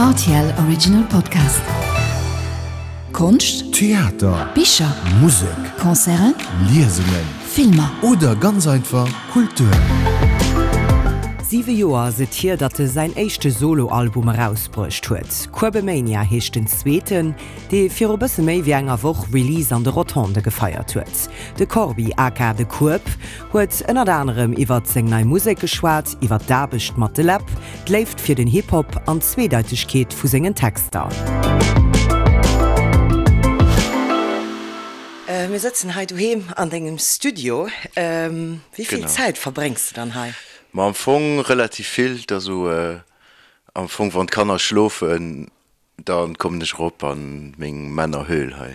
Rtl Original Podcast. Konscht, Theater, Bicher, Musek, Concerten, Liesungen Filmer. oder ganz einfach Kultur. Siwe Joer ass et hier, datt e säin éischte Solo-Album erausbruecht huet. Kuebemania heescht den zweeten, dee viru bësse méi wéi enger Woch Release an de Rotondë gefeiert huet. De Corbi aka De Kueb huet ënnert anerem iwwert seng nei Musek geschwat, iwwert d'Aarbecht mat de Läb, d'Léift fir den Hip-Hop an d'Zweedeitegkeet vu sengen Texter. Mir sëtzen hei doheem an dengem Studio. Wéi vill Zäit verbréngs de dann hei? Ma am Fong relativ vill. Et ass esou am Fong wann d'Kanner schlofen, Dann kommen ech erop an meng Männerhöhl hei.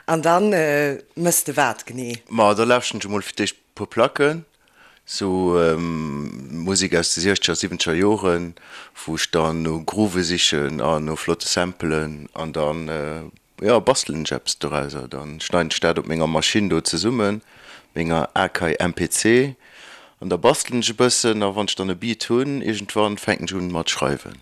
An dann mëss de wat genee? Ma da lauschten ech emol fir d'éischt puer Placken, sou Musek aus de siechzeger, siwwenzeger Joren, wou ech dann no Groove sichen an no flotte Samplen an dann, jo, bastelen ech eppes dorauser. Dann schneiden ech dat op menger Maschinn do zesummen, menger Akai MPC, an da bastelen ech e bëssen a wann ech dann e Beat hunn, iergendwann fänken ech un mat schreiwen.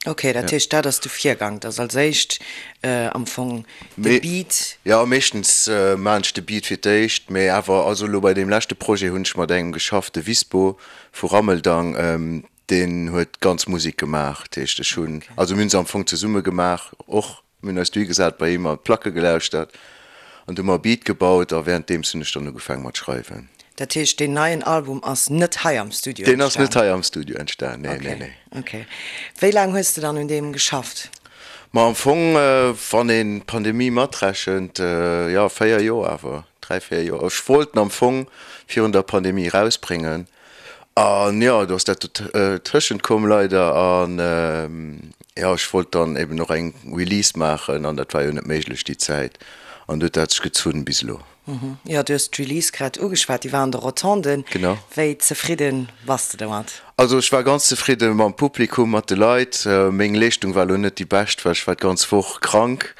Ok, dat heescht dat ass de Virgang, dass als éischt am Fong de Beat. Jo, meeschtens maachen ech de Beat fir d'éischt, mee awer also elo bei deem leschte Projet hunn ech mat engem geschafft, de Wispo vu Rammeldang, deen huet d'ganz Musek gemaach. Dat heescht ech hunn, also mir hunn se am Fong zesumme gemaach och, mir hunn eis dohi gesat bei him an d'Placke gelauschtert an du hu mer e Beat gebaut a wärenddeems hunn ech dann ugefaange mat schreiwen. Dat heescht deen neien Album ass net hei am Studio entstanen? Deen ass net hei am Studio entstan, nee, nee, nee. Ok. Wéi laang hues de dann un deem geschafft? Ma am Fong, wann een d'Pandemie matrechent, jo 4 Joer awer, 3, 4 Joer. Ech wollt en am Fong virun der Pandemie erausbréngen an jo, do ass dat dotëschent komm leider an jo, ech wollt dann eben och eng Release maachen an dat war jo net méiglech déi Zäit an du huet dat sech gezunn bis elo. Jo, du hues d'Release grad ugeschwat, déi war an de Rotonden. Genau. Wéi zefridde bass de domat? Also ech war ganz zefridde mam Publikum, mat de Leit. Meng Leeschtung war elo net déi bescht, well ech war d'ganz Woch krank.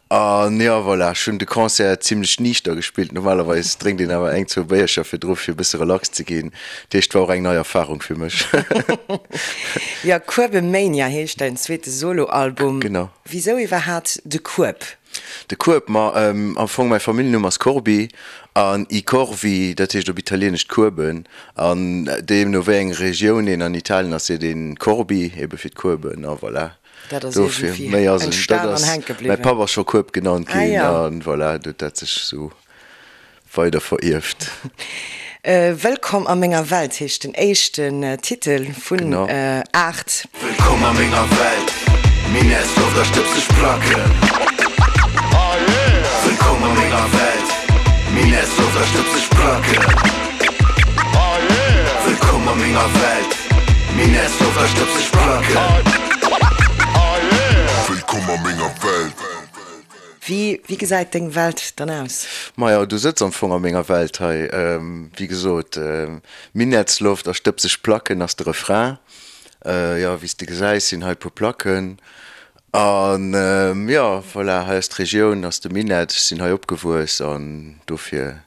An jo, voilà, ech hunn de Concert zimlech niichter gespillt. Normalerweis drénkt een awer eng, zwou Béiercher virdru fir e bësse relax ze ginn. Dat heescht, et war och eng nei Erfarung fir mech. Jo, Kuebemania heescht däin zweete Soloalbum. Genau. Wisou iwwerhaat de Kueb? De Kueb, ma am Fong mäi Familljennumm ass Corbi an i corvi, dat heescht op Italieenesch d'Kueben. An deemno wéi eng Regioun een an Italien ass, seet een Corbi, ebe fir d'Kueben a voilà. Dat ass Dofir, iergendwéi méi ass et net. entstan Dat an ass, hänke mäi bliwwen. Papp ass scho Kueb genannt Ah ginn jo. an voilà, do huet dat sech esou weider verierft. Wëllkomm a menger Welt heescht den éischten Titel vun 8. Wëllkomm a menger Welt, Minettsloft a stëbseg Placken. Wëllkomm a menger Welt, Minettsloft a stëbseg Placken. Wëllkomm a menger Welt, Minettsloft a stëbseg Placken. Wëllkomm a menger Welt. Wéi, wéi gesäit deng Welt dann aus? Majo, du sëtz am Fong a menger Welt hei. Wéi gesot, Minettsloft a stëbseg Placken ass de Refrain. Jo, wéi s de gesäis, sinn hei e puer Placken. An jo, voilà, hei ass d'Regioun, ass de Minett. Ech sinn hei opgewuess an dofir.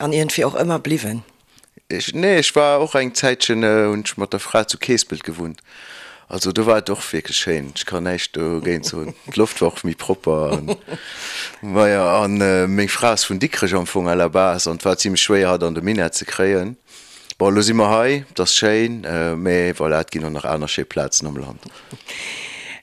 An iergendwéi och ëmmer bliwwen? Ech, nee, ech war och eng Zäitchen, hunn ech mat der Fra zu Keespelt gewunnt. Also do war et och wierklech schéin, ech kann näischt dogéint soen. D'Loft war och méi propper an, maja, an meng Fra ass vun Dikrech am Fong à la base an et war zimlech schwéier hatt an de Minett ze kréien. Bon, elo si mer hei, et ass schéin, mee voilà, et ginn och nach aner schéi Plazen am Land.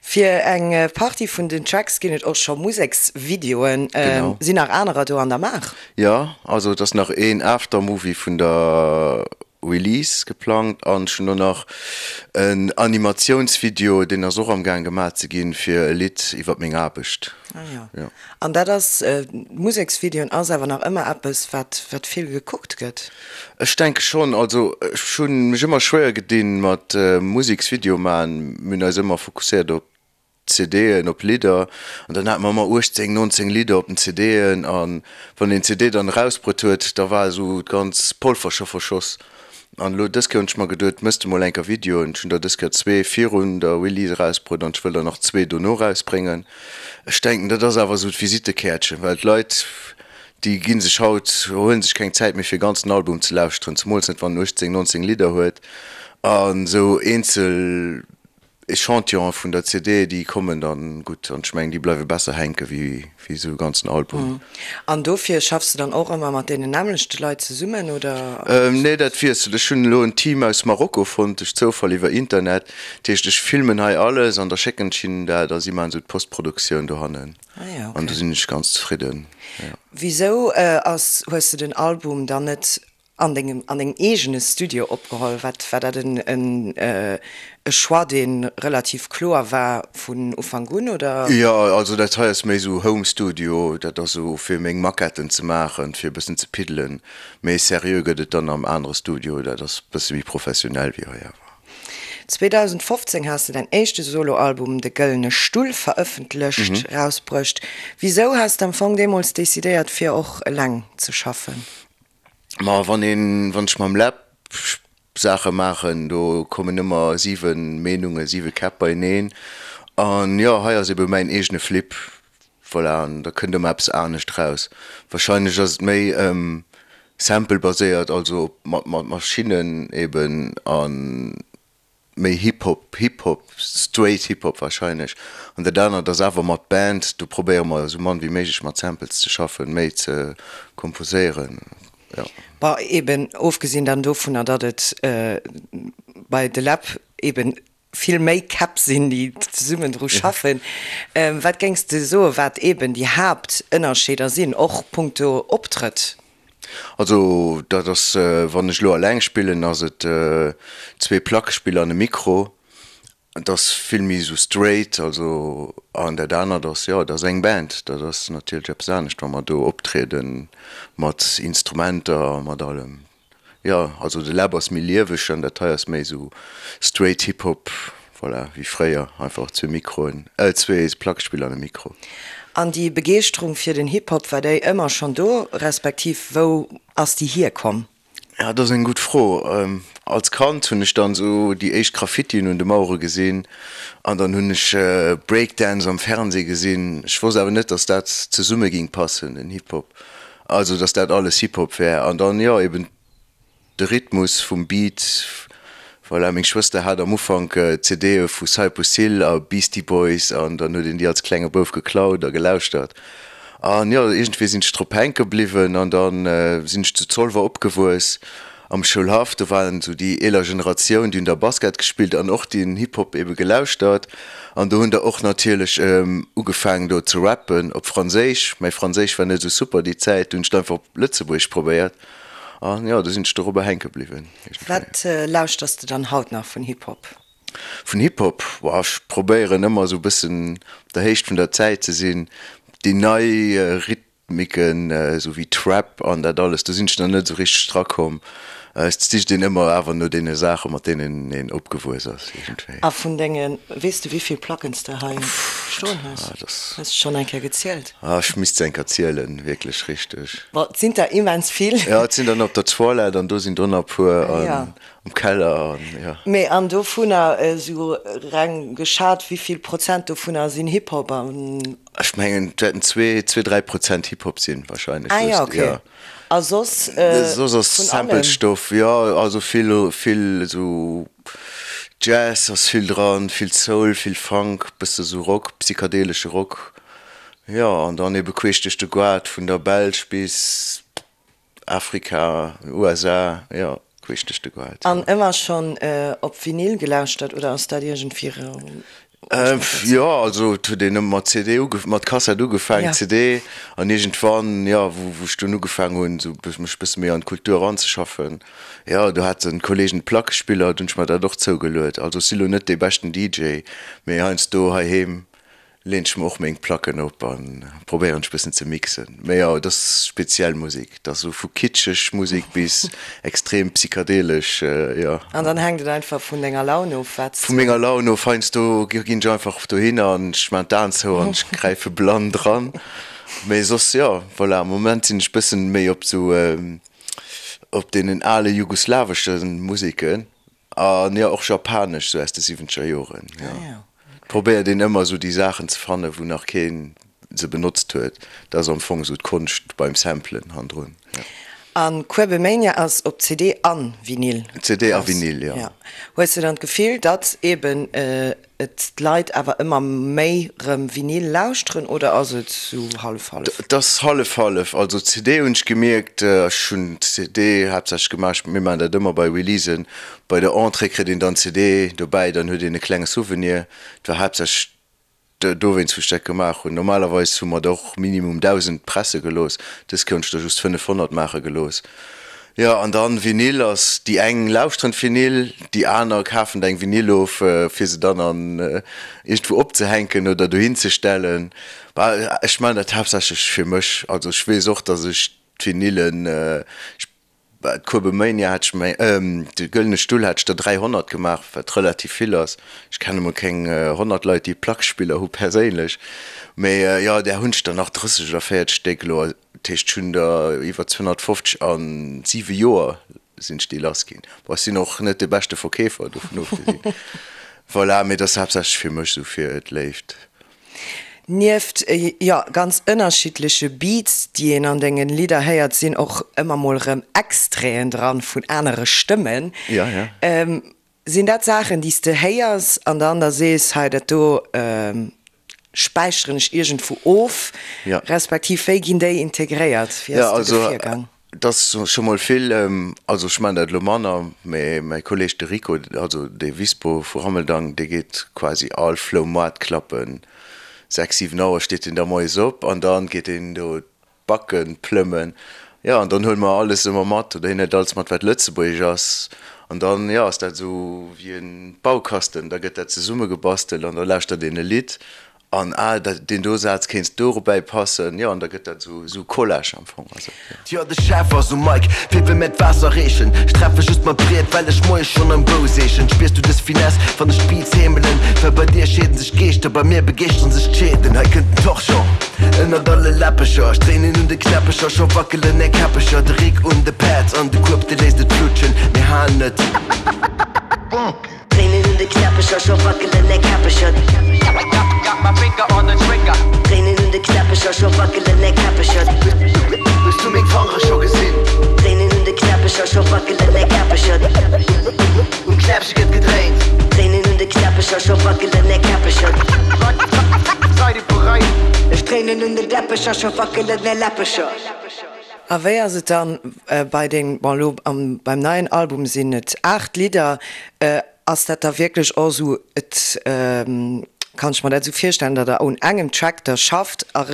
Fir eng Partie vun den Tracks ginn et och scho Museksvideoen. Genau. Sinn nach anerer do an der Maach? Jo, also et ass nach een Aftermovie vun der Release geplangt an ech hunn och nach en Animatiounsvideo, deen ass och am gaang gemaach ze ginn, fir e Lidd iwwert meng Aarbecht. Ah jo. Jo. An dat ass, Museksvideoen ass awer nach ëmmer eppes, wat wat vill gekuckt gëtt? Ech denke schonn. Also ech hunn mech ëmmer schwéier gedinn mat Museksvideo maachen. Mir hunn eis ëmmer fokusséiert op CDen, op Lidder an dann hate mer ëmmer 18, 19 Lidder op den CDen an wann een d'CD dann erausbruet huet, da war esou d'ganz Polver scho verschoss. An elo dës Kéier hunn ech mer geduet, mëss de mol enker Videoen. Ech hunn der dës Kéier zwee virun der Release erausbruet an ech wëll der nach zwee dono erausbréngen. Ech denken, dat ass awer esou d'Visittekäertchen, well d'Leit, déi gi sech haut, huele sech keng Zäit méi fir e ganzen Album ze lauschteren, zemools net wann en 18, 19 Lidder huet an esou eenzel. Echantillone vun der CD, déi kommen dann gutt an ech mengen, déi bleiwe besser hänke wéi esou e ganzen Album. An dofir schaffs de dann och ëmmer mat deenen nämmlechte Leit zesummen, oder? Nee, dat wiesselt. Ech hunn elo en Team aus Marokko fonnt, duerch Zoufall iwwer Internet. Dat heescht, ech filmen hei alles an da schécken ech hinnen dat a si maachen esou d'Postproduktioun dohannen. An do sinn ech ganz zefridden, jo. Wisou ass, hues de den Album dann net An dengem, an dengem eegene Studio opgeholl? Wat, war dat en, en, e Choix, dee relativ kloer war vun Ufank un, oder? Jo, also dat hei ass méi esou Home Studio, dat ass esou fir meng Maquetten ze maachen, fir e bëssen ze piddelen. Méi seriö gëtt et dann am anere Studio, dat ass e bësse méi professionell wéi hei awer. 2015 has de däin éischte Soloalbum De Gëllene Stull verëffentlecht, erausbruecht. Wisou has de am Fong deemools decidéiert fir och eleng ze schaffen? Ma wann een, wann ech mam Läb Saache maachen, do kommen ëmmer 7 Meenungen, 7 Käpp beieneen. An jo, hei ass ebe mäin eegene Flip, voilà, an da kënnt ëmmer eppes anescht raus. Wahrscheinlech ass et méi Sample-baséiert, also mat Maschinnen eben an méi Hip Hop, Hip Hop, straight Hip Hop wahrscheinlech. An dat anert ass awer mat Band, do probéiere mer esou mann wéi méiglech mat Samples ze schaffen, méi ze komposéieren, jo. Bon, eben ofgesinn dann dovunner, datt et bei De Läb eben vill méi Käpp sinn, déi zesummen dru schaffen. Wat géings de soen, wat eben déi Haaptënnerscheeder sinn, och punkto Optrëtt? Also dat ass, wann ech elo alleng spillen, ass et zwee Plackespiller an e Mikro. Et ass vill méi esou straight, also an dat anert ass, jo, et ass eng Band, dat ass natierlech eppes anescht, wa mer do optriede mat Instrumenter a mat allem. Jo, also de Läb ass méi lieweg an dat hei ass méi esou straight Hip Hop, voilà, wéi fréier, einfach zwee Mikroen, äh zwee Plackespiller an e Mikro. An déi Begeeschterung fir den Hip Hop, war déi ëmmer schonn do, respektiv wou ass déi hierkomm? Ja, dat ass eng gutt Fro. Als Kand hunn ech dann esou déi éischt Graffitien un de Mauere gesinn an dann hunn ech Breakdance am Fernseh gesinn. Ech wosst awer net, dass dat zesumme ging passen, den Hip Hop. Also dass dat alles Hip Hop wär an dann jo eben de Rhythmus vum Beat, voilà. Meng Schwëster hat am Ufank CDe vu Cypress Hill a Beastie Boys an dann huet een déi als klenge Bouf geklaut a gelauschtert an jo iergendwéi sinn ech drop hänke bliwwen an dann sinn ech zu Zolwer opgewuess Am Schoulhaff, do waren esou déi eeler Generatioun, déi hunn da Basket gespillt an och den Hip-Hop ebe gelauschtert. An do hunn der och natierlech ugefaangen do ze rappen op Franséisch. Mäi Franséisch war net esou super déi Zäit, do hunn ech et einfach op Lëtzebuergesch probéiert an jo, do sinn ech dorobber hänke bliwwen iergendwéi. Wat lauschters de dann haut nach vun Hip-Hop? Vun Hip-Hop? Boah, ech probéieren ëmmer esou e bëssen op der Héicht vun der Zäit ze sinn. Déi nei Rhyth Micken, esou wéi Trap an dat alles, do sinn ech nach net esou richteg dra komm. Et sicht een ëmmer awer no deene Saachen, mat deenen een opgewuess ass iergendwéi. A vun denge, weess de wéivill Placken s de hei stoen hues? Hues de schonn eng Kéier gezielt? Ah, ech misst se eng Kéier zielen, wierklech richteg. Bon, et sinn der immens vill. Jo, et sinn der nach op der Toilette an do sinn der nach e puer an am Keller an jo. Mee an dovunner, esou reng geschat, wéivill Prozent dovunner sinn Hip-Hop an? Ech mengen et wäerten zwee, zwee, 3 Prozent Hip-Hop sinn wahrscheinlech. Ah ja, okay. A soss Soss ass vun allem? Sample-Stoff, jo, also vill, vill esou Jazz ass vill dran, vill Soul, vill Funk, bësse sou Rock, psychadelesche Rock, jo, an dann ebe queesch duerch de Goart vun der Belsch bis Afrika, USA, jo, queesch duerch de Goart. An ëmmer schonn op Vinyl gelauschtert oder ass dat iergendwéi Jo, also et huet een ëmmer mat CD uge mat Kassett ugefaangen, CD, an iergendwann, jo, wou wou ech dunn ugefaangen hunn, esou mech e bësse méi an d'Kultur eranzeschaffen, jo, do haten d'Kollegen Plackespiller, do hunn ech mer dat och zougeluet. Also ech si lo net dee beschten DJ, mee heiansdo heiheem Leen ech mer och meng Placken op an probéieren ech bëssen ze mixen. Mee jo, et ass speziell Musek, et ass esou vu kitscheg Musek bis extrem psychadelesch, jo. An dann hänkt et einfach vun denger Laun of, wat s. Vu menger Laun of, heiansdo ginn ech einfach dohinner an ech maan d'Aen zou an ech gräife blann dran. Mee soss, jo, voilà, am Moment sinn ech bëssen méi op esou op deenen ale jugoslawesche Museken. An jo, och japanesch, sou aus de siwwenzeger Joren, jo. Probéiert een ëmmer sou déi Saachen ze fannen, wou nach keen se benotzt huet. Dat ass am Fong sou d'Konscht beim Samplen handrun, jo. An Kuebemania ass op CD an Vinyl CD a Vinyl, jo. Hues de dann d'Gefill, datt eben et d'Leit awer ëmmer méi rëm Vinyl lauschteren oder ass et sou hallef-hallef? Et ass hallef-hallef. Also CD hunn ech gemierkt, ech hunn CD haaptsächlech gemaach, mir maachen dat ëmmer bei Releasen, bei der Entrée kritt een dann CD dobäi, dann huet een e klenge Souvenir. Et war haaptsächlech Dowéinst wou ech dat gemaach hunn. Normalerweis hu mer der och minimum 1.000 presse gelooss, dës Kéier hunn ech der just 500 maache gelooss. Jo, an dann Vinyl ass, déi eng lauschteren d'Vinyl, déi aner kafen der eng Vinyl of, fir se dann an iergendwou opzehänken oder dohin ze stellen. Bah, ech maachen dat haaptsächlech fir mech. Also ech weess och, datt ech d'Vinylen, ech D'Kuebemania hat ech meng, de Gëllene Stull hat ech der 300 gemaach, wat relativ vill ass. Ech kenne mol keng 100 Leit, déi Plackspiller hu perséinlech. Mee jo, där hunn ech der nach 30 oder 40 Stéck elo. Dat heescht, ech hunn der iwwer 250 a siwe Joer sinn ech déi lass ginn. Bon, ech sinn och net de beschte Verkeefer, dovun ofgesinn. Voilà, mee dat ass haaptsächlech fir mech esou fir d'Léift. Nieft, jo, ganz ënnerschiddleche Beats, déi een an dengen Lidder héiert, sinn och ëmmer mol rëm Extraiten dran vun anere Stëmmen. Ja, ja. Sinn dat Saachen, déi s de héiers an dann da sees, hei dat do späicheren ech iergendwou of, respektiv wéi ginn déi integréiert? Wéi ass de do virgaang? Et ass scho mol vill, also ech maachen dat elo manner, mä mäi Kolleeg de Rico, also de Wispo vu Rammeldang, dee geet quasi all Floumoart klappen. 6, 7 Auer steet deen da moies op an da geet deen do d'Backen plëmmen. Jo, an dann huele mer alles ëmmer mat, oder hien huet alles mat wat lëtzebuergesch ass. An dann, jo, ass dat esou wéi e Baukasten, da gëtt dat zesummegebastelt an da lauschtert een e Lidd An ah, dat, deen do Saz kéinst dorobäi passen, jo, an da gëtt dat esou, esou Collage am Fong, also, jo. Jo, de Chef ass um Mic, fir wëll mär d'Waasser reechen. Ech treffe just mat Briet, well ech moies schonn am Bou seechen. Spiers du dës Finesse, wann ech d'Beats heemelen? Well bei dir scheeden sech d'Geeschter, bei mir begeeschteren sech d'Scheeden. Hei kënnt den Torchon ënnert alle Läppecher. Ech dréinen un de Knäppecher, scho wackelen är Käppecher. De Rick un de Pads an de Kueb, de léisst et flutschen. Mir halen et. Dréinen un de Knäppecher, scho wackelen är Käppecher. Dréinen un de Knäppecher, scho wackelen är Käppecher. Hues du meng Fangere scho gesinn? Dréinen un de Knäppecher, scho wackelen är Käppecher. Um Knäppche gëtt gedréint. Dréinen un de Knäppecher, scho wackelen är Käppecher. Seid ihr bereit? Ech dréinen un de Läppecher, scho wackelen är Läppecher. A wéi ass et dann bei den, bon elo beim neien Album sinn et 8 Lidder, ass dat da wierklech och esou, et kann ech mer dat esou virstellen, datt der un engem Track da schafft a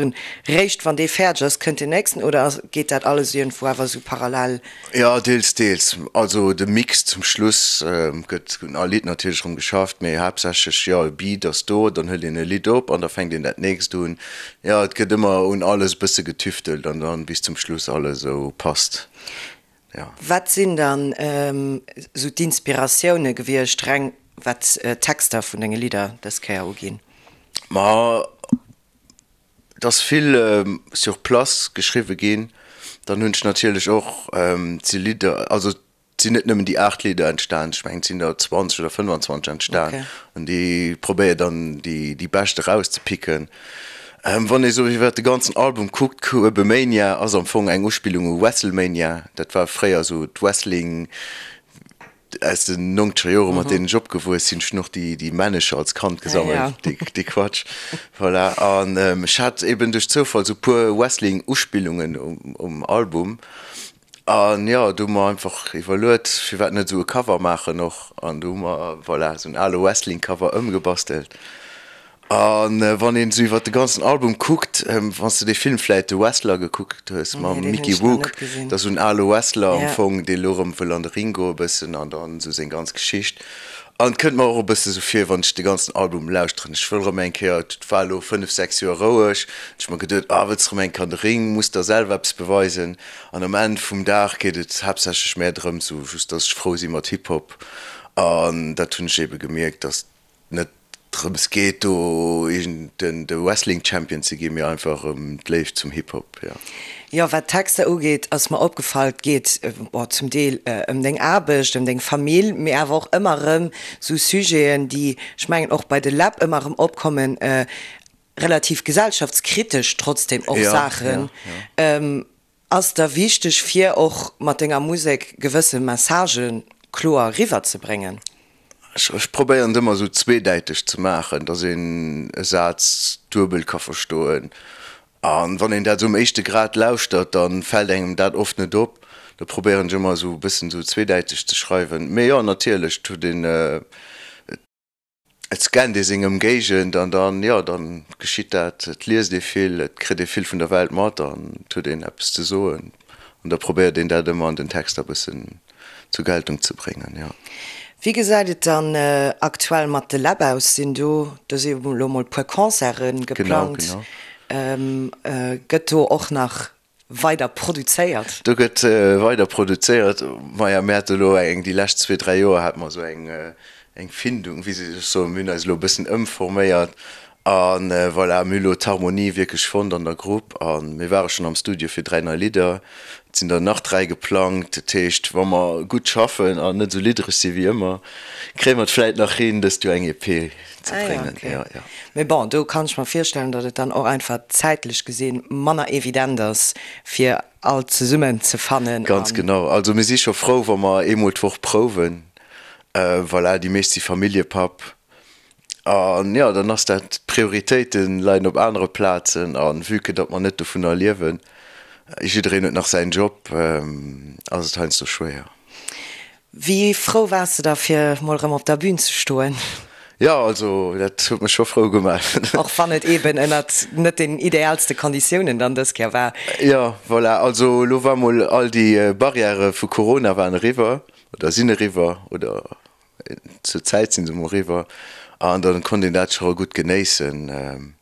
réischt wann dee fäerdeg ass kënnt deen nächsten oder geet dat alles iergendwou awer esou parallel? Jo, deels, deels. Also de Mix zum Schluss gëtt un all Lidd natierlech erëm geschafft, mee haaptsächlech, jo, e Beat ass do, dann hëlt een e Lidd op an da fänkt een dat nächst un. Jo, et gëtt ëmmer un alles e bësse getüftelt an dann bis zum Schluss alles esou passt, jo. Wat sinn dann esou d'Inspiratioune gewiescht, reng wat d'Texter vun denge Lidder dës Kéier uginn? Ma Et ass vill sur place geschriwwe ginn. Dann hunn ech natierlech och, et si Lidder, also et sinn net nëmmen déi 8 Lidder entstan, ech mengen et sinn der 20 oder 25 entstan an déi probéier dann déi déi bescht erauszepicken. Wann ee sou iwwert de ganzen Album kuckt, Kuebemania ass am Fong eng Uspillung u Wrestlemania, dat war fréier esou d'Wrestling Aus den nongzeger Jore mat deenen ech opgewuess sinn. Ech hunn och déi Männecher als Kand gesammelt, dee Quatsch. Voilà. An ech hat eben duerch Zoufall sou puer Wrestling-Uspillungen um Album. An jo, do hu mer einfach iwwerluet, firwat net esou e Cover maachen och. An do hu mer, voilà, esou en ale Wrestling-Cover ëmgebastelt. A wann een esou iwwer de ganzen Album kuckt, wann s de dee Film vläit The Wrestler gekuckt hues mam Mickey Rourke, dat ass esou en ale Wrestler am Fong, dee elo erëm wëll an de Ring goe bëssen an dann esou seng ganz Geschicht. An et kënnt mer och e bësse sou vir, wann ech de ganzen Album lauschteren, ech wëll erëm eng Kéier, et war elo 5, 6 Joer roueg, hunn ech mer geduet, ah wëlls erëm eng Kéier an de Ring, muss der selwer eppes beweisen. An um Enn vum Dag geet et haaptsächlech mär drëms, esou just, dass ech frou si mat Hip-Hop. An dat hunn ech eebe gemierkt, dass net drëms geet do iergend den de Wrestling Champion ze ginn, mee einfach ëm d'Léift zum Hip Hop, jo. Jo, wat d'Texter ugeet, ass mer opgefall, et geet bon zum Deel ëm deng Aarbecht, ëm deng Famill, mee awer och ëmmer erëm sou Sujeten, déi, ech mengen, och bei de Läb ëmmer erëm opkommen, relativ gesellschaftskritesch trotzdem och Saachen. Ass der wichteg fir och mat denger Musek gewësse Messagë kloer eriwwer ze bréngen? Ech probéieren et ëmmer esou zweedäiteg ze maachen, dass een e Saz duebel ka verstoen. A wann een dat esou um éischte Grad lauschtert, da fält engem dat oft net op. Da probéieren ech ëmmer esou e bëssen esou zweedäiteg ze schreiwen. Mee jo, natierlech, et huet een, et scannt ee seng Ëmgéigend an dann, jo, dann geschitt dat. Et liest ee vill, et kritt ee vill vun der Welt mat an et huet een eppes ze soen. An da probéiert een dat ëmmer an den Texter e bëssen zur Geltung ze bréngen, jo. Wéi gesäit et dann aktuell mat de Läb aus? Sinn do, do si jo elo mol puer Concerte geplangt, gëtt do och nach weider produzéiert? Do gëtt weider produzéiert. Maja, mir hate elo eng, déi lescht zwee, dräi Joer hate mer esou eng, eng Findung, wéi soll ech soen, mir hunn eis elo e bëssen ëmforméiert A voilà, mir hu lo d'Harmonie wierklech fonnt an der Grupp a mir ware schonn am Studio fir 3 nei Lidder. Et sinn der nach 3 geplangt. Dat heescht, wa mer gutt schaffen an net esou liddereg si wéi ëmmer, kréie mer et vläit nach hin, dëst Joer eng EP ze Ah ja, bréngen. okay. Jo, jo. Mee bon, do kann ech mer virstellen, datt et dann och einfach zäitlech gesinn manner evident ass, fir all zesummen ze fannen Ganz an. genau. Also mir si scho frou, wa mer eemol d'Woch prouwen. Voilà, déi meescht si Familljepapp. An jo, dann ass dat, d'Prioritéite leien op anere Plazen a vue que datt mer net dovunner liewen, jiddereen huet nach säin Job, ass et heiansdo schwéier. Wéi frou waars de da fir mol erëm op der Bün ze stoen? Jo, also dat huet mech scho frou gemaach. Och wann et eben ënnert net den ideaalste Konditiounen dann dës Kéier war. Jo, voilà, also elo war mol all déi Barrièrë vu Corona waren eriwwer oder sinn eriwwer oder Zur Zäit sinn se mol eriwwer an dann konnt een dat scho gutt genéissen.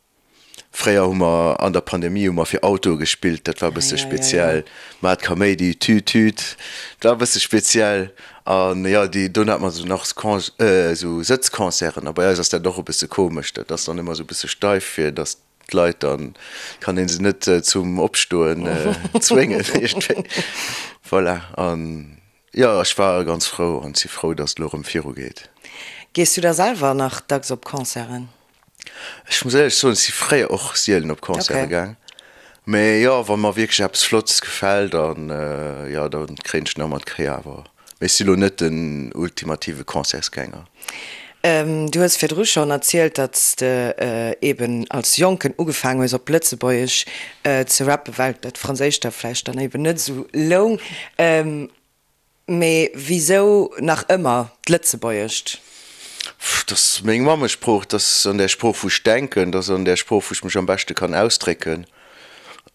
Fréier hu mer an der Pandemie hu mer fir Autoe gespillt, dat war e bësse speziell. Mat Kaméidi, Tüt Tüt, dat war e bësse speziell. An jo, déi dunn hat mer esou nach esou Sëtzconcerten a bei eis ass dat och e bësse komesch, dat ass dann ëmmer esou e bësse steif fir datt d'Leit, dann kann ee se net zum Opstoen zwéngen iergendwéi. Voilà an Jo, ech war ganz frou an si frou, dass et elo erëm viru geet. Gees du da selwer nach dacks op Concerten? Ech muss éierlech soen, ech si fréier och sielen op Concerte gaang. Mee jo, wa mer wierklech eppes Flottes gefält, dann jo, da kréien ech nach mat d'Kéier awer. Mee ech si lo net den ultimative Concertsgänger. Du hues virdru schonn erzielt, datt s de eben als Jonken ugefaangen hues op Lëtzebuergesch ze rappen, well dat Franséischt der vläicht dann eben net esou loung. Mee wisou nach ëmmer d'Lëtzebuergescht? Dat ass meng Mammesprooch, dat ass an där Sprooch wou ech denken, dat ass an där Sprooch wou ech mech am beschte kann ausdrécken.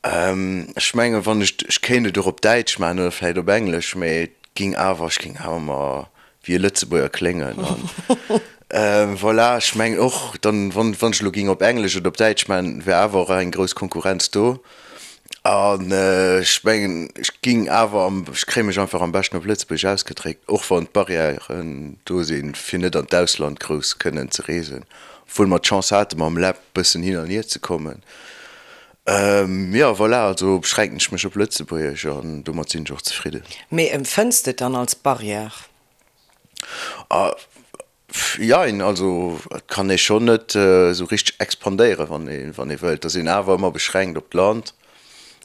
Ech mengen, wann ech, ech kéint et och op Däitsch maachen oder vläicht op Englesch, mee et ging awer, ech géing awer ëmmer wéi e Lëtzebuerger kléngen an voilà, ech mengen och dann, wann wann ech elo géing op Englesch oder op Däitsch maachen, wär awer och eng grouss Konkurrenz do an ech mengen, ech géing awer am, ech kréie mech einfach am beschten op Lëtzebuergesch ausgedréckt, och wann d'Barrièren do sinn, fir net an d'Ausland grouss kënnen ze reesen, obwuel mer d'Chance hate mam Läb bëssen hin an hier ze kommen. Jo, voilà, also beschränken ech mech op Lëtzebuergesch an domat sinn ech och zefridden. Mee empfënns de et dann als Barrière? Jein, also et kann ee schonn net esou richteg expandéieren, wann ee wann ee wëllt. Et ass een awer ëmmer beschränkt op d'Land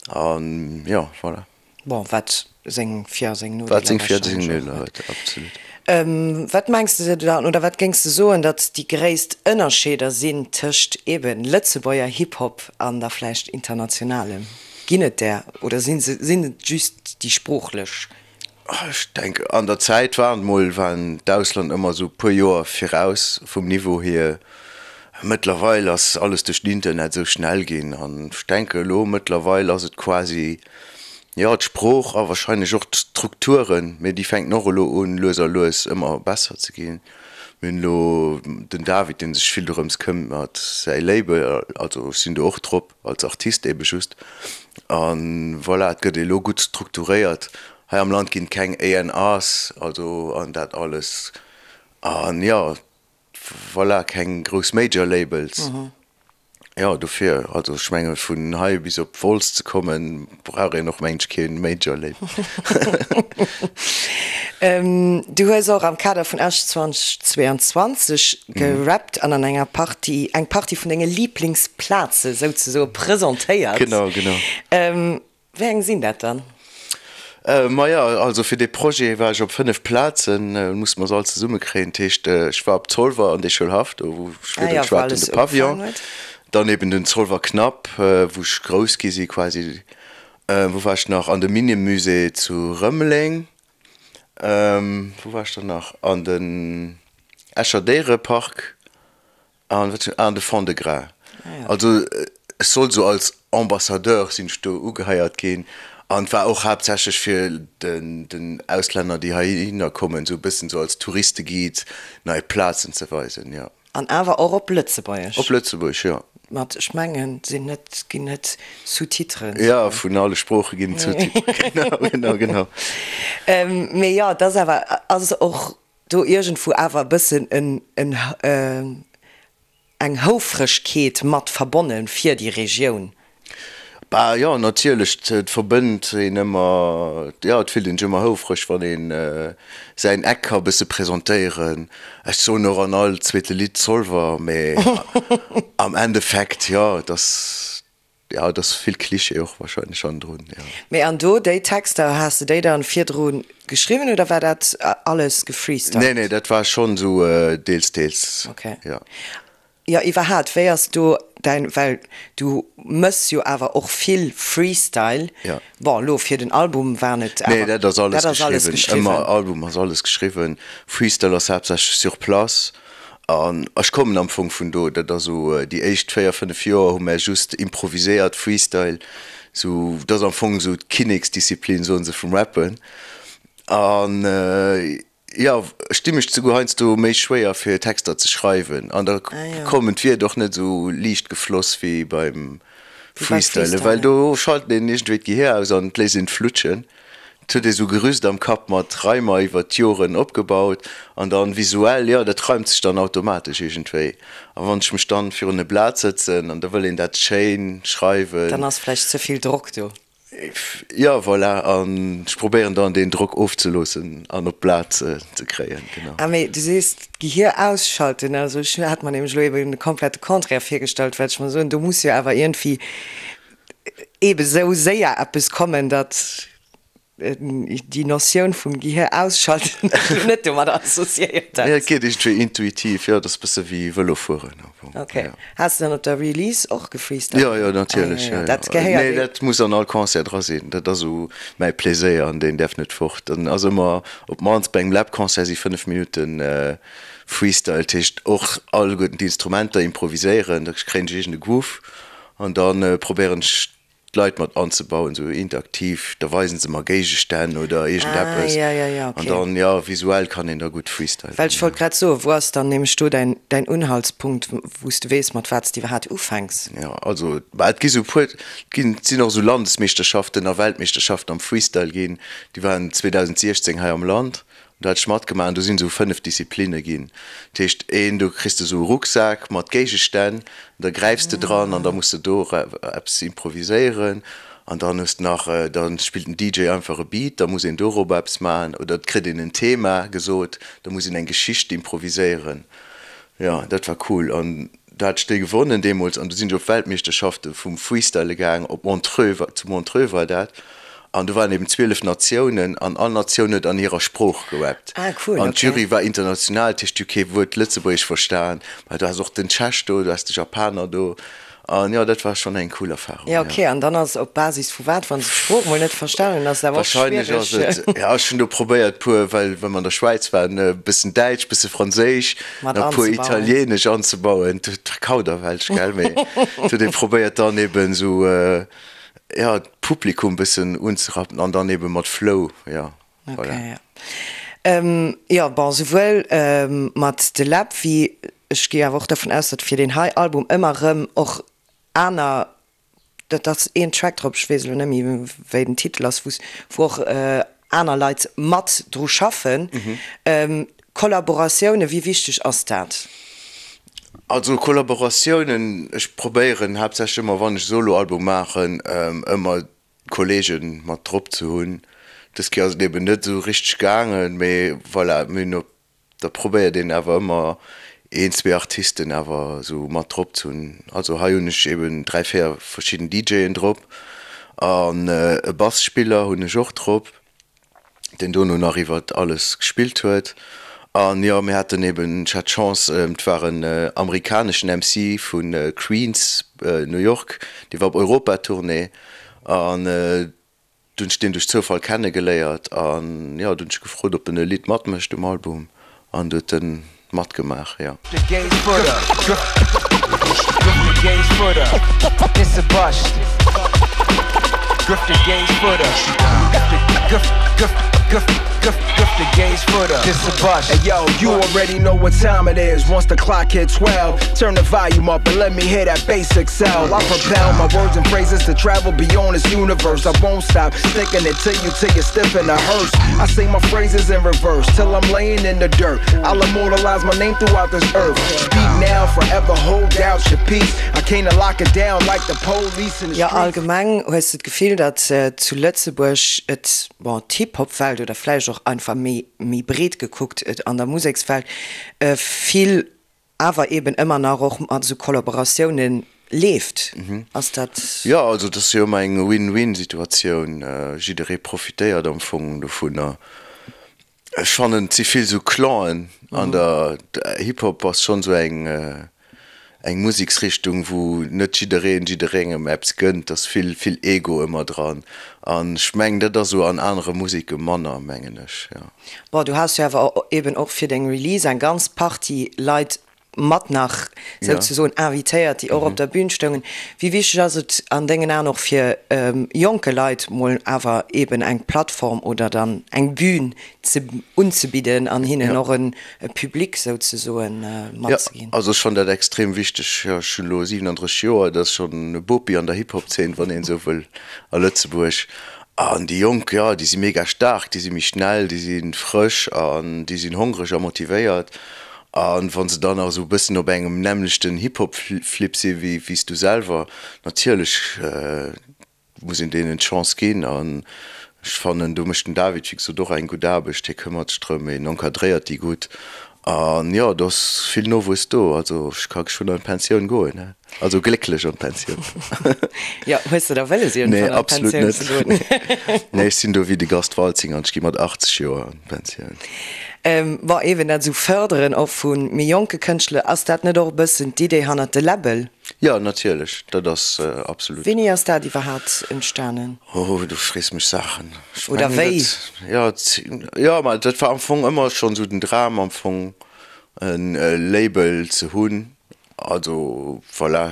an jo, voilà. Bon, wat seng Vir a seng Nodeeler Wat seng Vir a seng Nodeeler huet, absolut. Wat mengs de dann, oder wat géings de soen, datt déi gréisst Ënnerscheeder sinn tëscht eeben Lëtzebuerger Hip-Hop an da vläicht internationalem? Ginn et där oder sinn se, sinn et just déi sproochlech? Ech denken, an der Zäit waren mol, waren d'Ausland ëmmer esou e puer Joer viraus vum Niveau hier. Mëttlerweil ass alles duerch den Internet esou schnell ginn an ech denke elo mëttlerweil ass et quasi, jo, d'Sprooch a wahrscheinlech och d'Strukturen, mee déi fänken och elo un lues a lues ëmmer besser ze ginn. Mir hunn elo den David, dee sech vill dorëms këmmert, säi Label, also ech sinn do och drop als Artist ebe just an voilà, et gëtt elo gutt strukturéiert. Hei am Land ginn et keng A&Rs, also an dat alles an jo, Voilà, keng grouss Major Labels. Jo, dofir, also ech menge vun hei bis op Wolz ze kommen, brauch een och mengen ech kee Major Label. Du hues och am Kader vun Esch 2022 gerappt an an enger Partie eng Partie vun denge Liblingsplaze souzesoe presentéiert. Genau, genau. Wéi eng sinn dat dann? Maja, also fir dee Projet war ech op 5 Plazen, musse mer se all zesumme kréien. Dat heescht, ech war op Zolwer an dee Schoulhaff, do wou ech virdru geschwat hunn, de Pavillon, dann eben den Zolwer Knapp, wou ech grouss gi si quasi. Wou war ech nach? An de Minnemusée zu Rëmeleng. Wou war ech dann nach? An den Escher Déierepark. An wat ah, de Fond-de-Gras. Also ech sollt esou als Ambassadeur sinn ech do ugeheiert ginn an et war och haaptsächlech fir den den Auslänner déi heihinner kommen esou e bëssen esou als Touristeguide nei Plazen ze weisen, jo. An awer och op Lëtzebuergesch? Op Lëtzebuergesch, jo. Mat, ech mengen, sinn net, ginn net Sous-titren. Jo, vun alle Sprooche ginn et Sous-titren, genau, genau, genau. Mee jo, et ass awer, ass och do iergendwou awer e bëssen en, en, eng Houfregkeet mat verbonne fir déi Regioun. Bah jo, natierlech, et verbënnt een ëmmer, jo, et fillt een sech ëmmer houfreg, wann een säin Eck ka bësse presentéieren. Ech soen och an all zweete Lidd Zolwer, mee am Endeffekt, jo, et ass, Jo, et ass vill Cliché och wahrscheinlech hannendrun, jo. Mee an do, déi Texter, has de déi dann virdru geschriwwen oder war dat alles gefreestylt? Nee, nee, dat war schonn esou deels, deels, jo. Jo, iwwerhaat, wéi ass do däin, well du mëss jo awer och vill Freestyle, bon, elo fir den Album waren et awer. Nee, dat ass alles geschriwwen, ëmmer, Album ass alles geschriwwen, Freestyle ass haaptsächlech sur place. An ech kommen am Fong vun do. Dat ass esou, déi éischt 4, 5 Joer hu mär just improviséiert, Freestyle, esou, dat ass am Fong esou d'Kinneksdisziplin, soen se, vum Rappen. An jo, ech di mech souguer heiansdo méi schwéier fir Texter ze schreiwen an da kommen d'Wierder och net esou liicht gefloss wéi beim Freestylen, well do schalt een iergendwéi d'Gehier aus an et léisst een et flutschen. Et huet ee sou Gerüst am Kapp mat Reimer iwwert d'Joren opgebaut an dann visuell, jo, dat reimt sech dann automatesch iergendwéi. A wann ech mech dann virun e Blat sëtzen an da wëll een dat schéin schreiwen. Dann ass vläicht ze vill Drock do. Jo, voilà, an ech probéieren dann deen Drock ofzeloossen an op d'Blat ze kréien, genau. Ah, mee du sees d'Gehier ausschalten, also ech hat mer nämlech elo eben de komplette Contraire virgestallt, well ech mer soen, do muss jo awer iergendwéi eebe sou séier eppes kommen, datt déi Notioun vum Gehir ausschalten ech elo net domadder associéiert hätt. Nee, et geet iergendwéi intuitiv, jo, et ass e bësse wéi Vëlo fueren am Fong. Ok. Has de dann op der Release och gefreestylt? Jo, jo, natierlech, jo, jo. Dat gehéiert Nee, dat muss an all Concert dra sinn. Dat ass esou mäi Pleséier an deen däerf net fort. Dann ass ëmmer, op d'mannst bei engem Läb-Concert si 5 Minutten Freestyle, dat heescht och alleguerten d'Instrumenter improviséieren, da kréien ech iergend e Groove An da probéieren ech d'Leit mat anzebauen, sou interaktiv, da weisen se mer Géigestänn oder iergendeppes. Ah, ja, ja, ja, okay. An dann, jo, visuell kann een da gutt freestylen. Well ech wollt grad soen, wou ass dann nämlech do däin, däin Unhaltspunkt, wou s de weess, mat wat s de iwwerhaat ufänks? Jo, also, bah, et gi sou puer, et ginn, et sinn och sou Landesmeeschterschaften a Weltmeeschterschaften am Freestyle ginn, déi waren 2016 hei am Land. Do hat ech matgemaach an do sinn esou 5 Disziplinne ginn. Dat heescht een, do kriss de esou e Rucksak mat Géigestänn, da gräifs de dran an da muss de do eppes improviséieren. An dann hues de nach, da spillt den DJ einfach e Beat, da muss een dorobber eppes maachen oder et kritt een en Thema gesot, da muss een eng Geschicht improviséieren. Jo, dat war cool an do hat ech déi gewonnen deemools an du sinn ech op d'Weltmeeschterschafte vum Freestyle gaang op Montreux, zu Montreux war dat an do waren eben 12 Natiounen an all Natioun huet an hirer Sprooch gerappt. Ah cool, An d'Jury war international, dat heescht, déi hu kee Wuert Lëtzebuergesch verstan, mä du has och den Tschech do, du has de Japaner do An jo, dat war schonn eng cool Erfahrung. Jo, ok. An dann ass op Basis vu wat, wann se d'Sprooch mol net verstanen hunn, ass et awer och schwiereg. Wahrscheinlech ass et, ja, ech hunn do probéiert puer, well well mer an der Schwäiz waren, e bëssen Däitsch, bësse Franséisch, Mat nach puer anzebauen. Italieenesch anzebauen. Dat war Kauderwelsch, gell, mee et huet ee probéiert dann eben esou, ja, d'Publikum bëssen unzerappen an dann eben mat Flow, ja, voilà. Ok, ja. Jo, bon, souwuel mat De Läb wéi Ech gi awer och dervun aus, datt fir deen hei Album ëmmer erëm och aner, dat ass een Track drop, ech weess elo net méi wéi den Titel ass, wou wou och aner Leit mat dru schaffen. Kollaboratiounen, wéi wichteg ass dat? Also Kollaboratiounen, ech probéieren haaptsächlech ëmmer wann ech Soloalbum maachen, ëmmer Kollegen mat drop ze hunn. Dës Kéier ass et eben net esou richteg gaangen, mee voilà, mir hunn op Da probéiert een awer ëmmer een, zwee Artisten awer esou mat drop ze hunn. Also hei hunn ech eben 3, 4 verschidden DJen drop. An e Bassspiller hunn ech och drop, deen dono nach iwwert alles gespillt huet. An jo, mir haten eben, ech hat d'Chance, et war en amerikaneschen MC vu Queens, New York, dee war op Europatournée an Du hunn ech deen duerch Zoufall kenne geléiert an jo, du hunn ech gefrot op en e Lidd matmécht um Album an du huet en matgemaach, jo. Jo, allgemeng hues de d'Gefill, datt zu Lëtzebuerg et, bon, d'Hip-Hop-Welt oder vläicht och einfach méi, méi breet gekuckt, et an der Musekswelt vill awer eben ëmmer nach och mat esou Kollaboratiounen leeft. Ass dat. Jo, also et ass jo ëmmer eng Win-Win-Situatioun. Jidderee profitéiert am Fong dovunner. Ech fannen, et si vill esou Clanen an der Hip-Hop ass schonn esou eng eng Museksrichtung, wou net jiddereen jidderengem eppes gënnt. Et ass vill vill Ego ëmmer dran an ech mengen, dat ass esou an anere Museke manner, mengen ech, jo. Bon, du has jo awer eben och fir deng Release eng ganz Partie Leit mat nach souzesoen invitéiert, déi och op der Bühn stoungen. Wéi wichteg ass et an dengen Aen och fir jonke Leit mol awer eben eng Plattform oder dann eng Bühn ze unzebidden an hinnen och e Public souzesoen matzeginn? Jo, also ech fannen dat extrem wichteg. Jo, ech hunn elo 37 Joer, dat ass schonn e Bopi an der Hip-Hop-Zeen, wann een esou wëll, a Lëtzebuerg. An déi Jonk, jo, déi si mega staark, déi si méi schnell, déi si frësch an déi sinn hongreg a motivéiert. A wa se dann nach esou e bëssen op engem nämmlechten Hip-Hop-Flip si wéi s du selwer, natierlech muss een deenen d'Chance ginn. An ech fannen, do mécht den David, wéi gesot, och eng gutt Aarbecht. Hie këmmert sech drëm, hien encadréiert déi gutt. An jo, do ass vill Nowuess do. Also ech ka geschwënn an d'Pensioun goen, he. Also glécklech an d'Pensioun. Jo, hues de da wëlles iergendwann an d'Pensioun ze goen? Nee, absolut net. Nee, ech sinn do wéi de Gast Waltzing an ech gi mat 80 Joer an d'Pensioun. Bon, eben dat esou fërderen och vu méi jonke Kënschtler, ass dat net och e bëssen d'Idee hannert de Läbbel? Jo, natierlech, dat ass absolut. Wéini ass dat iwwerhaapt entstanen? Oh, du frees mech Saachen. Ech Oder mengen wéi? dat, jo, jo, ma dat war am Fong ëmmer schonn esou den Dram am Fong e Label ze hunn. Also voilà,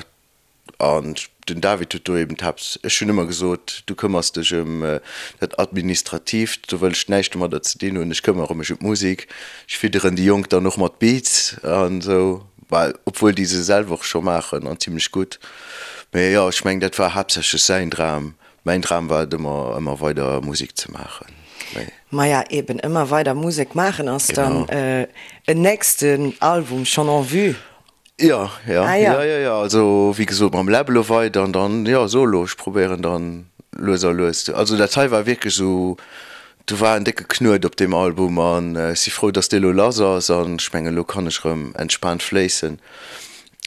an den David huet do eben d'Haapt, ech hunn ëmmer gesot, du këmmers dech ëm dat Administratiivt, do wëll ech näischt domadder ze dinn hunn, ech këmmere mech ëm d'Musek, ech fidderen déi Jonk dann och mat Beats an esou, well obwuel déi se selwer och scho maachen an zimlech gutt. Mee jo, ech mengen dat war haaptsächlech säin Dram, mäin Dram war et ëmmer, ëmmer weider Musek ze maachen. Mee. Maja eben, ëmmer weider Musek maachen, ass dann en nächsten Album schonn en vue? Jo, jo, ah, ja. jo, jo, jo, also wéi gesot mam Läb elo weider an dann, jo, Solo, ech probéieren dann lues a lues. Also dat hei war wierklech esou, do war en décke Knuet op deem Album an ech si frou, dass dee elo lass ass an ech mengen, elo kann ech erëm entspaant fléissen.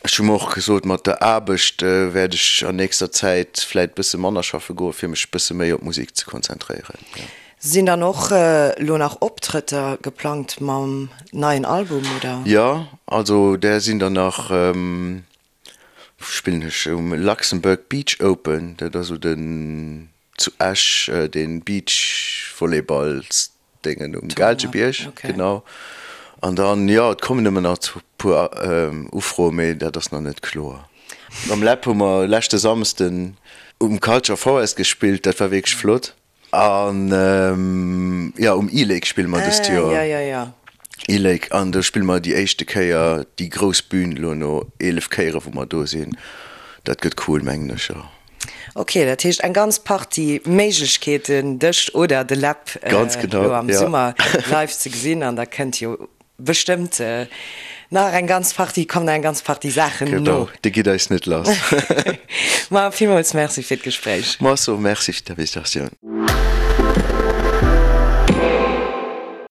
Ech hu mer och gesot, mat der Aarbecht wäert ech an nächster Zäit vläit bësse manner schaffe goen, fir mech bësse méi op d'Musek ze konzentréieren, jo. Sinn dann och lo nach Optrëtter geplangt mam neien Album, oder? Jo, also där sinn der nach. Wou spillen ech? Um Luxembourg Beach Open, dat ass esou den zu Esch dee Beachvolleyballs-Déngen um Gaalgebierg, genau. An dann, jo, et kommen ëmmer nach e puer Ufroen, mee dat ass nach net kloer. Mam Läb hu mer leschte Samsden um Culture Forest gespillt, dat war wierklech flott. An jo, um E-Lake spille mer dëst Joer. Ah, jo, jo, jo. E-Lake, an do spille mer déi éischte Kéier déi grouss Bühn elo no 11 Kéiere wou mer do sinn. Dat gëtt cool, mengen ech, jo. Ok, dat heescht eng ganz Partie Méiglechkeeten dech oder de Läb elo am Summer live ze gesinn an da kënnt jo Bestëmmt nach eng ganz Partie, kommen nach eng ganz Partie Saachen no. Genau, dir gitt eis net lass. Ma villmools Merci fir d'Gespréich. Mer soe Merci fir d'Invitatioun.